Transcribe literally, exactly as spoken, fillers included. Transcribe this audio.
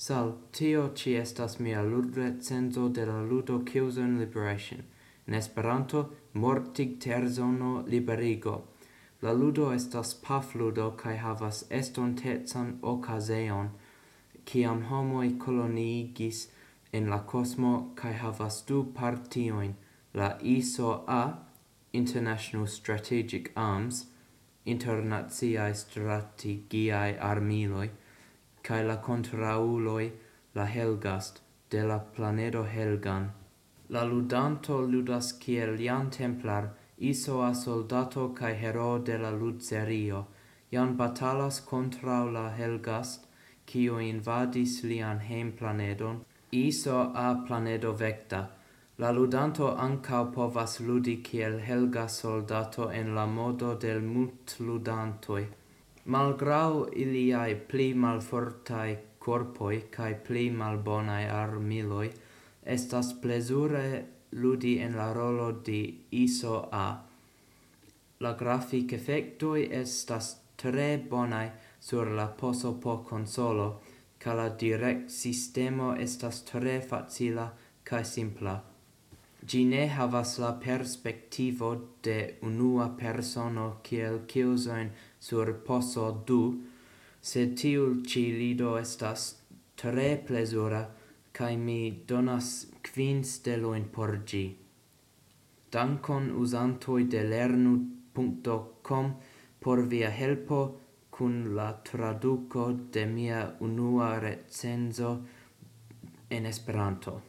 Sal, tio ĉi estas mia ludrecenzo de la ludo Killzone Liberation. En Esperanto, mortigterzono liberigo. La ludo estas pafludo kaj havas estontecan okazeon, kiam homoj koloniigis en la kosmo kaj havas du partiojn, la I S O A, International Strategic Arms, internaciaj strategiaj armiloj, kaj la kontraŭuloj, la Helghast, de la planedo Helghan. La ludanto ludas kiel Jan Templar, I S O A soldato kaj hero de la ludserio. Jan batalas kontraŭ la Helghast, kiu invadis lian hejmplanedon, I S O A planedo Vecta. La ludanto ankaŭ povas ludi kiel Helghast soldato en la modo de multludantoj. Malgraŭ iliaj pli malfortaj korpoj kaj pli malbonaj armiloj, estas plezure ludi en la rolo de I S O A. La grafikefektoj estas tre bonaj sur la P O S O P konsolo, kaj la direktsistemo estas tre facila kaj simpla. Ĝi ne havas la perspektivo de unua persono kiel Killzone sur P O S O du, sed tiu ĉi ludo estas tre plezura, kaj mi donas kvin stelojn por ĝi. Dankon, uzantoj de lernu punkto com, por via helpo kun la traduko de mia unua recenzo en Esperanto.